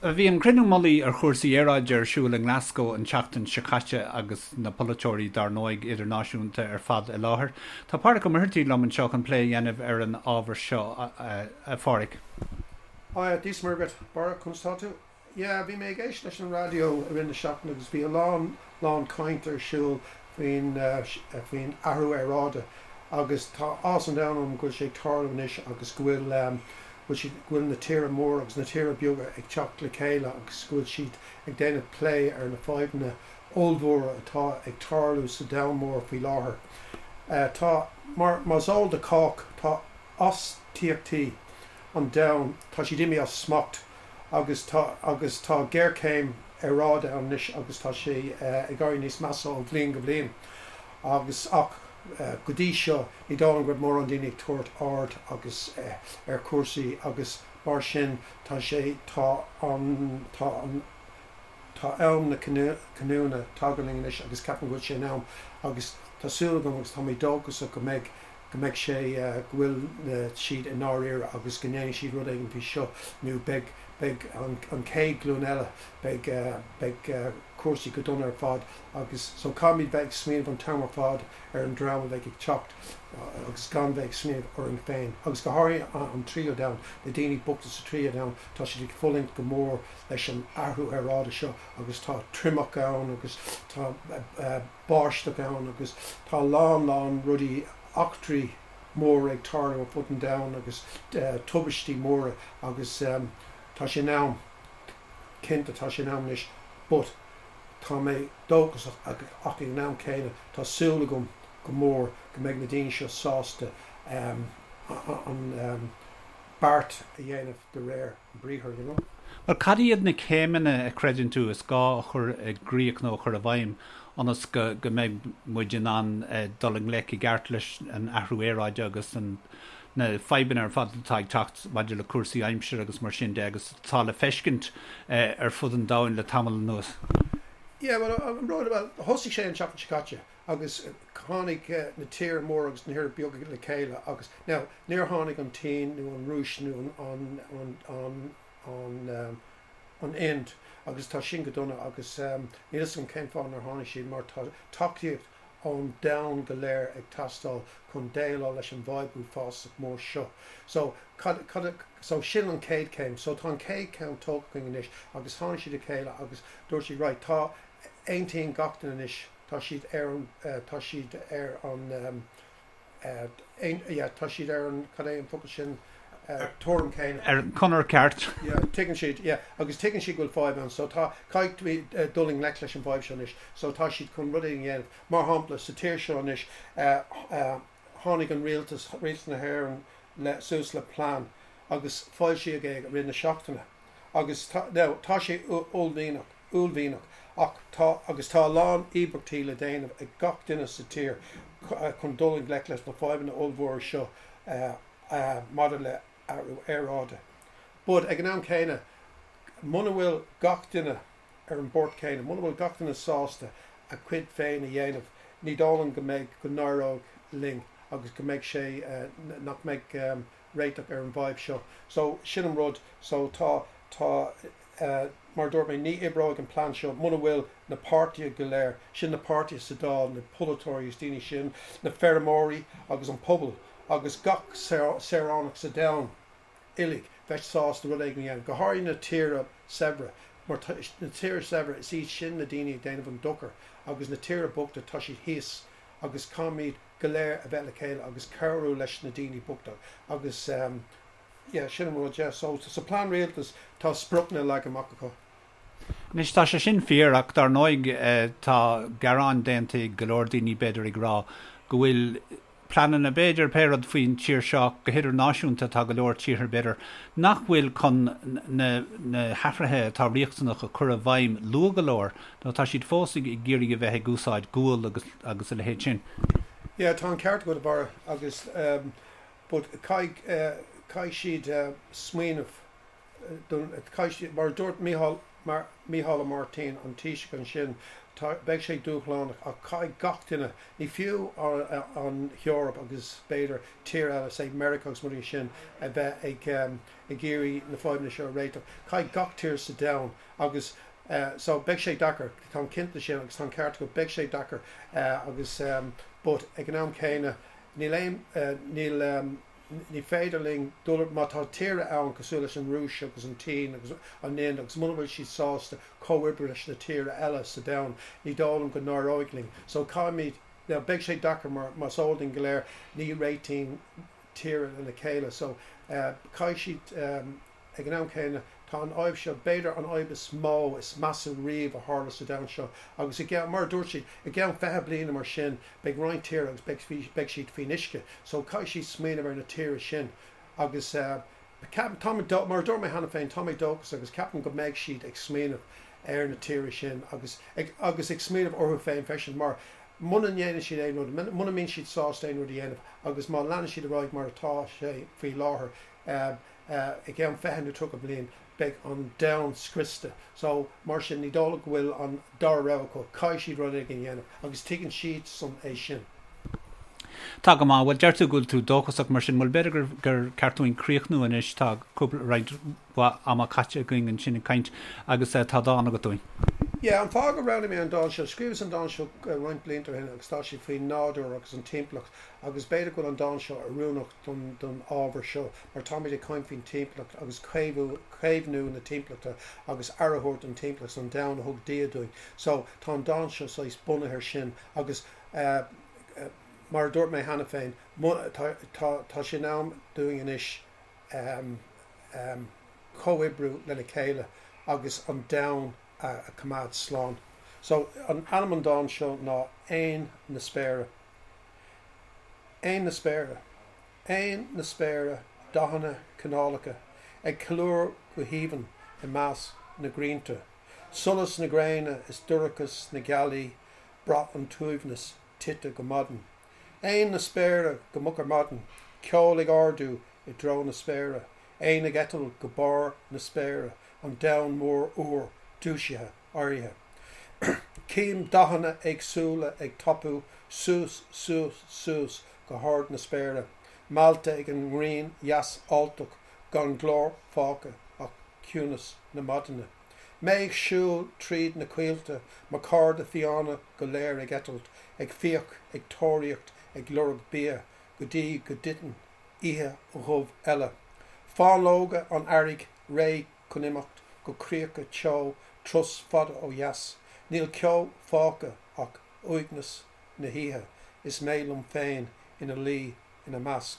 Bhí an cruinniú mullaigh ar chúrsaí aeráide ar siúl i nGlasgow an tseachtain seo caite agus na polaiteoirí dár ndóigh idirnáisiúnta ar fad i láthair. Tá Pádraic Ó Muircheartaigh liom anseo chun plé a dhéanamh ar an ábhar seo, a Phádraic. Hiya, Dia 's Muire dhuit, Barra, conas tá tú? Yeah, bhí mé ag éisteacht leis an raidió i rith na seachtaine agus bhí a lán, lán caint ar siúl faoin, faoin athrú aeráide agus tá áthas an domhain orm go bhfuil sé ag tarlú anois agus go bhfuil, go bhfuil siad, go bhfuil na tíortha móra agus na tíortha beaga ag teacht le chéile agus go bhfuil siad ag déanamh plé ar na fadhbanna ollmhóra atá ag tarlú sa domhan mór faoi láthair. Tá, mar, mar is eol do chách, tá astaíochtaí an domhain, tá siad imithe as smacht. agus tá agus tá géarchéim aeráide ann anois agus tá sé ag éirí níos measa ó bhliain go bliain agus ach go dtí seo ní dóigh liom go raibh mórán daoine ag tabhairt aird agus ar chúrsaí agus mar sin tá sé tá an tá an tá am na cinniúna tagtha linn anois agus ceapaim go bhfuil sé in am agus tá súil agam agus tá mé dóchasach go mbeidh go mbeidh sé, go bhfuil siad i ndáiríre agus go ndéanfaidh siad rud éigin faoi seo nó beidh, beidh an chéad ghlúin eile, beidh, beidh cúrsaí go dona ar fad agus so caithfimid bheith ag smaoineamh an t-am ar fad ar an dream a bheidh ag teacht agus gan bheith ag smaoineamh orainn féin agus go háirithe an tríú domhan, na daoine bochta sa tríú domhan, tá siad ag fulaingt go mór leis an athrú aeráide seo agus tá triomach ann agus tá báisteach ann agus tá a lán lán rudaí, eachtraí móra ag tarlú ar fud an domhain agus tubaistí móra agus tá sé in am, cinnte tá sé in am anois but tá mé dóchasach ach ag an am céanna tá súil agam go mór go mbeidh na daoine seo sásta an beart a dhéanamh de réir an briathair, you know. Bhuel, cad iad na céimeanna a chreideann tú is gá a chur i gcrích nó a chur i bhfeidhm ionas go go mbeidh muid in ann dul i ngleic i gceart leis an athrú aeráide agus an na fadhbanna ar fad atá ag teacht maidir le cúrsaí aimsire agus mar sin de agus atá le feiscint ar fud an domhain le tamall anuas? Yeah, well, an rud, well, thosaigh sé an tseachtain seo caite. agus tháinig na tíortha móra agus na tíortha beaga le chéile agus, now, níor tháinig an tSín nó an Rúis nó an, an, an, an, an Ind agus tá sin go dona agus níl fhios agam cén fáth nár tháinig siad mar tá tacaíocht ón domhan go léir ag teastáil chun déileáil leis an bhfadhb uafásach mór seo. So, cad, cad, so sin an chéad chéim. So tá an chéad cheann tógtha againn anois agus tháinig siad le chéile agus dúirt siad right, tá, aontaíonn gach duine anois, tá siad ar an, tá siad ar an, yeah, tá siad ar an, cad é an focal sin, tuairim céanna. Ar an chonair ceart. Yeah, tuigeann siad, yeah, agus tuigeann siad go bhfuil fadhb ann, so tá, caithfidh dul i ngleic leis an bhfadhb seo anois, so tá siad chun rud éigin a dhéanamh. Mar shampla, sa tír seo anois, tháinig an rialtas, rialtas na hÉireann le, suas le plean agus foilsíodh é i rith na seachtaine agus tá, now, tá sé uaillmhianach, uaillmhianach ach tá agus tá a lán íobairtí le déanamh ag gach duine sa tír chun dul i ngleic leis na fadhbanna ollmhóra seo maidir le athrú aeráide. But ag an am céanna, muna bhfuil gach duine ar an bport céanna, muna bhfuil gach duine sásta a chuid féin a dhéanamh, ní dóigh liom go mbeidh, go n-éireoidh linn agus go mbeidh sé, nach mbeidh réiteach ar an bhfadhb seo. So, sin an rud. So, tá, tá. Mar a dúirt mé, ní oibreoidh an plean seo muna bhfuil na páirtithe go léir, sin na páirtithe sa Dáil, na polaiteoirí is daoine sin, na feirmeoirí agus an pobal agus gach saoránach sa domhan uilig bheith sásta rud éigin a dhéanamh, go háirithe na tíortha saibhre, mar na tíortha saibhre, is iad sin na daoine ag déanamh an dochar agus na tíortha bochta, tá siad thíos agus caithfimid go léir a bheith le chéile agus cabhrú leis na daoine bochta agus. Yeah, sin an rud, yeah. So, sa plean rialtais, tá spriocanna leagtha amach acu. Anois, tá sé sin fíor, ach dar ndóigh, tá gearáin déanta ag go leor daoine, b'fhéidir, ag rá go bhfuil pleananna, b'fhéidir, pé rud faoin tír seo, go hidirnáisiúnta, tá go leor tíortha, b'fhéidir, nach bhfuil chun na na hathruithe atá riachtanach a chur i bhfeidhm luath go leor, nó tá siad fós ag iarraidh a bheith ag úsáid gual agus agus a leithéid sin. Yeah, tá an ceart agat, a Bharra, agus But caithfidh, caithfidh siad smaoineamh don, caithfidh siad, mar a dúirt Mícheál, mar, Mícheál Ó Máirtín, an Taoiseach ansin, Tá, beidh sé dúshlánach ach caithfidh gach duine, ní fiú an Eoraip agus b'fhéidir tír eile, say Meiriceá agus rudaí sin, a bheith ag ag iarraidh na fadhbanna seo a réiteach. Caithfidh gach tír sa domhan agus so beidh sé deacair, táim cinnte sin agus tá an ceart agat, beidh sé deacair agus but ag an am céanna níl aon, níl, Ní féidir linn dul, má tá tíortha ann cosúil leis an Rúis agus an tSín agus an Ind agus muna bhfuil siad sásta comhoibriú leis na tíortha eile sa domhan, ní dóigh liom go n-éireoidh linn. So caithfimid, now beidh sé deacair mar más eol dúinn go léir ní réitíonn tíortha lena chéile so caithfidh siad, Ag an am céanna, tá an fhadhb seo, b'fhéidir an fhadhb is mó, is measa riamh a tharla sa domhan seo, agus i gceann, mar a dúirt siad, i gceann 20 bliana mar sin, beidh roinnt tíortha agus beidh, beidh siad faoin uisce. So caithfidh siad smaoineamh ar na tíortha sin. Agus ceapaim, tá mé, mar a dúirt mé cheana féin, tá mé dóchasach agus ceapaim go mbeidh siad ag smaoineamh ar na tíortha sin agus ag, agus ag smaoineamh orthu féin freisin mar muna ndéanann siad aon rud, muna mbíonn siad sásta aon rud a dhéanamh agus má leanann siad ar aghaidh mar atá sé faoi láthair, i gceann 20 nó 30 bliain beidh an domhan scriosta. So, mar sin, ní dóigh liom go bhfuil an dara rogha acu, caithfidh siad rud éigin a dhéanamh agus tuigeann siadsan é sin. Tá go maith. Bhuel, deir tú go bhfuil tú dóchasach mar sin. Bhuel, b'fhéidir gur gur ceart dúinn críochnú anois. Tá cúpla, roinnt mhaith ama caite againn ansin ag caint agus tá dán agat dúinn. Yeah, an fáth gur roghnaigh mé an dán seo, scríobhas an dán seo roinnt blianta ó shin agus tá sé faoin nádúr agus an timpeallacht agus b'fhéidir go bhfuil an dán seo oiriúnach don don ábhar seo mar táimid ag caint faoin timpeallacht agus caomhú caomhnú na timpeallachta agus aire a thabhairt don timpeallacht an domhan a thug Dia dúinn. So tá an dán seo saghas bunaithe ar sin agus eh mar a dúirt mé cheana féin tá tá tá sé in am dúinn anois ehm ehm comhoibriú lena chéile agus an domhan a a choimeád slán. So an ainm an dán seo ná Éin na Spéire. Éin na spéire. Éin na spéire, dathanna cineálacha, ag ceiliúradh go haoibhinn i measc na gcrainnte. Solas na gréine is dorchadas na gealaí, braith an t-uaigneas tite go maidin. Éin na spéire go moch ar maidin, ceol ag ardú i dtreo na spéire, éin ag eitilt go barr na spéire, an domhan mór úr dúisithe. éirithe. Cím dathanna éagsúla ag tapú suas, suas, suas go hard na spéire, meallta ag an ngrian dheas alltach, gan glór fágtha ach ciúnas na maidine. Mé ag siúl tríd na coillte, mo chairde fiáine go léir ag eitilt, ag fiach, ag tóraíocht, ag lorg bia, go dtí go dtiteann oíche dhubh eile. Fáinleoga an earraigh réidh chun imeacht go críocha teo turas fada ó dheas. Níl ceo fágtha ach uaigneas na hoíche is mé liom féin ina luí ina measc.